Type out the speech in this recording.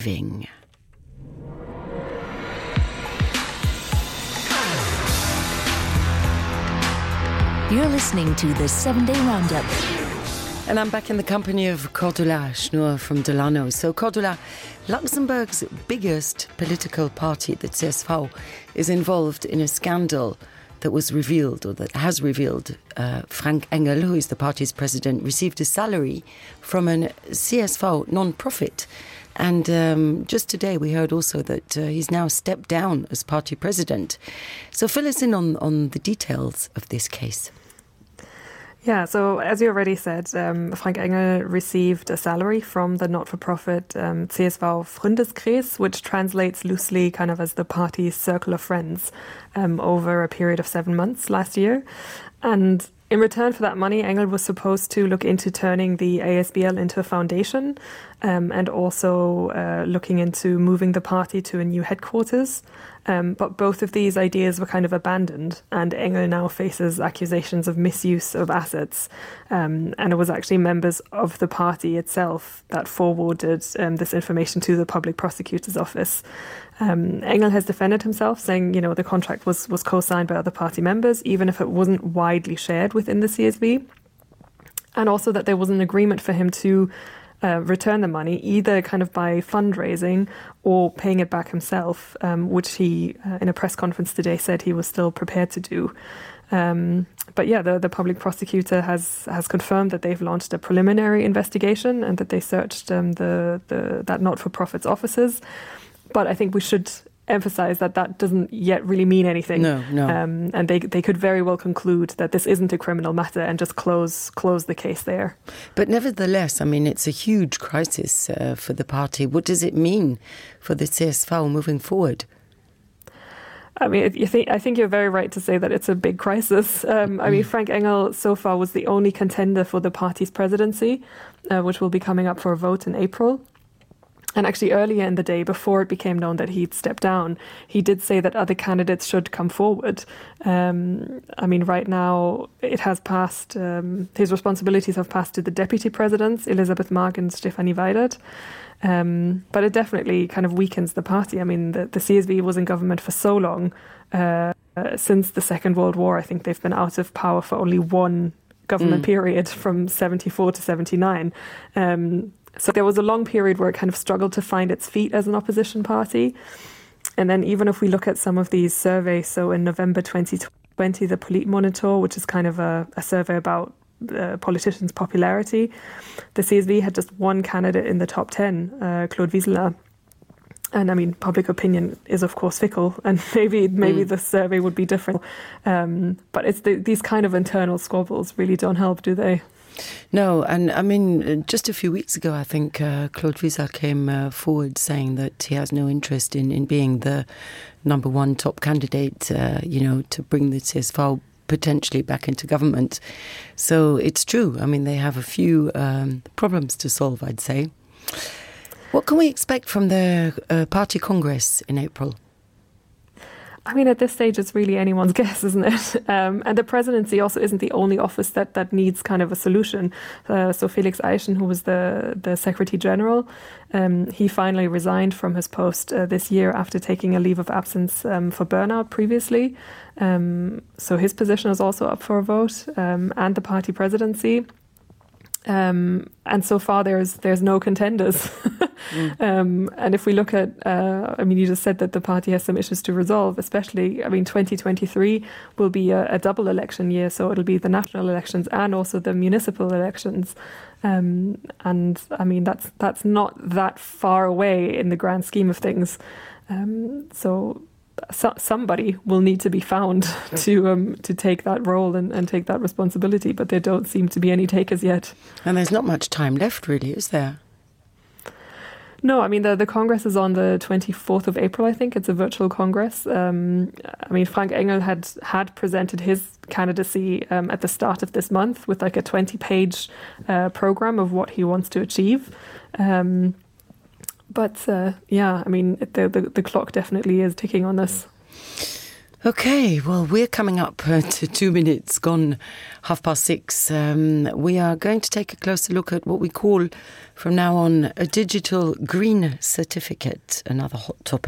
Ving. You're listening to the 7-Day Roundup. And I'm back in the company of Cordula Schnur from Delano. So Cordula, Luxembourg's biggest political party, the CSV, is involved in a scandal that was revealed, or that has revealed, Frank Engel, who is the party's president, received a salary from a CSV non-profit. And just today we heard also that he's now stepped down as party president. So fill us in on the details of this case. Yeah, so as you already said, Frank Engel received a salary from the not-for-profit CSV Freundeskreis, which translates loosely kind of as the party's circle of friends, over a period of 7 months last year. And in return for that money, Engel was supposed to look into turning the ASBL into a foundation, and also looking into moving the party to a new headquarters. But both of these ideas were kind of abandoned, and Engel now faces accusations of misuse of assets. And it was actually members of the party itself that forwarded this information to the public prosecutor's office. Engel has defended himself, saying, you know, the contract was co-signed by other party members, even if it wasn't widely shared within the CSV. And also that there was an agreement for him to return the money, either kind of by fundraising or paying it back himself, which he, in a press conference today, said he was still prepared to do. But yeah, the public prosecutor has confirmed that they've launched a preliminary investigation and that they searched that not-for-profit's offices. But I think we should emphasize that doesn't yet really mean anything. No. And they could very well conclude that this isn't a criminal matter and just close the case there. But nevertheless, I mean, it's a huge crisis for the party. What does it mean for the CSV moving forward? I mean, I think you're very right to say that it's a big crisis. I mean, Frank Engel so far was the only contender for the party's presidency, which will be coming up for a vote in April. And actually earlier in the day, before it became known that he'd stepped down, he did say that other candidates should come forward. I mean, right now it has passed, his responsibilities have passed to the deputy presidents, Elisabeth Mark and Stefanie Weidert. But it definitely kind of weakens the party. I mean, the CSV was in government for so long. Since the Second World War, I think they've been out of power for only one government period, from 74 to 79. So there was a long period where it kind of struggled to find its feet as an opposition party. And then even if we look at some of these surveys, so in November 2020, the Politmonitor, which is kind of a survey about politicians' popularity, the CSV had just one candidate in the top 10, Claude Wieseler. And I mean, public opinion is, of course, fickle, and maybe the survey would be different. But it's these kind of internal squabbles really don't help, do they? No, and I mean, just a few weeks ago, I think Claude Wieseler came forward saying that he has no interest in being the number one top candidate, to bring the CSV potentially back into government. So it's true. I mean, they have a few problems to solve, I'd say. What can we expect from the party congress in April? I mean, at this stage, it's really anyone's guess, isn't it? And the presidency also isn't the only office that needs kind of a solution. So Felix Eichen, who was the Secretary General, he finally resigned from his post this year after taking a leave of absence for burnout previously. So his position is also up for a vote, and the party presidency. And so far there's no contenders. And if we look at, I mean, you just said that the party has some issues to resolve, especially, I mean, 2023 will be a double election year. So it'll be the national elections and also the municipal elections. And I mean, that's not that far away in the grand scheme of things. So somebody will need to be found to take that role and take that responsibility, but there don't seem to be any takers yet. And there's not much time left, really, is there? No, I mean, the Congress is on the 24th of April, I think. It's a virtual Congress. I mean, Frank Engel had presented his candidacy at the start of this month with like a 20-page program of what he wants to achieve. But yeah, I mean, the clock definitely is ticking on this. Okay, well, we're coming up to 2 minutes gone 6:30. We are going to take a closer look at what we call from now on a digital green certificate, another hot topic.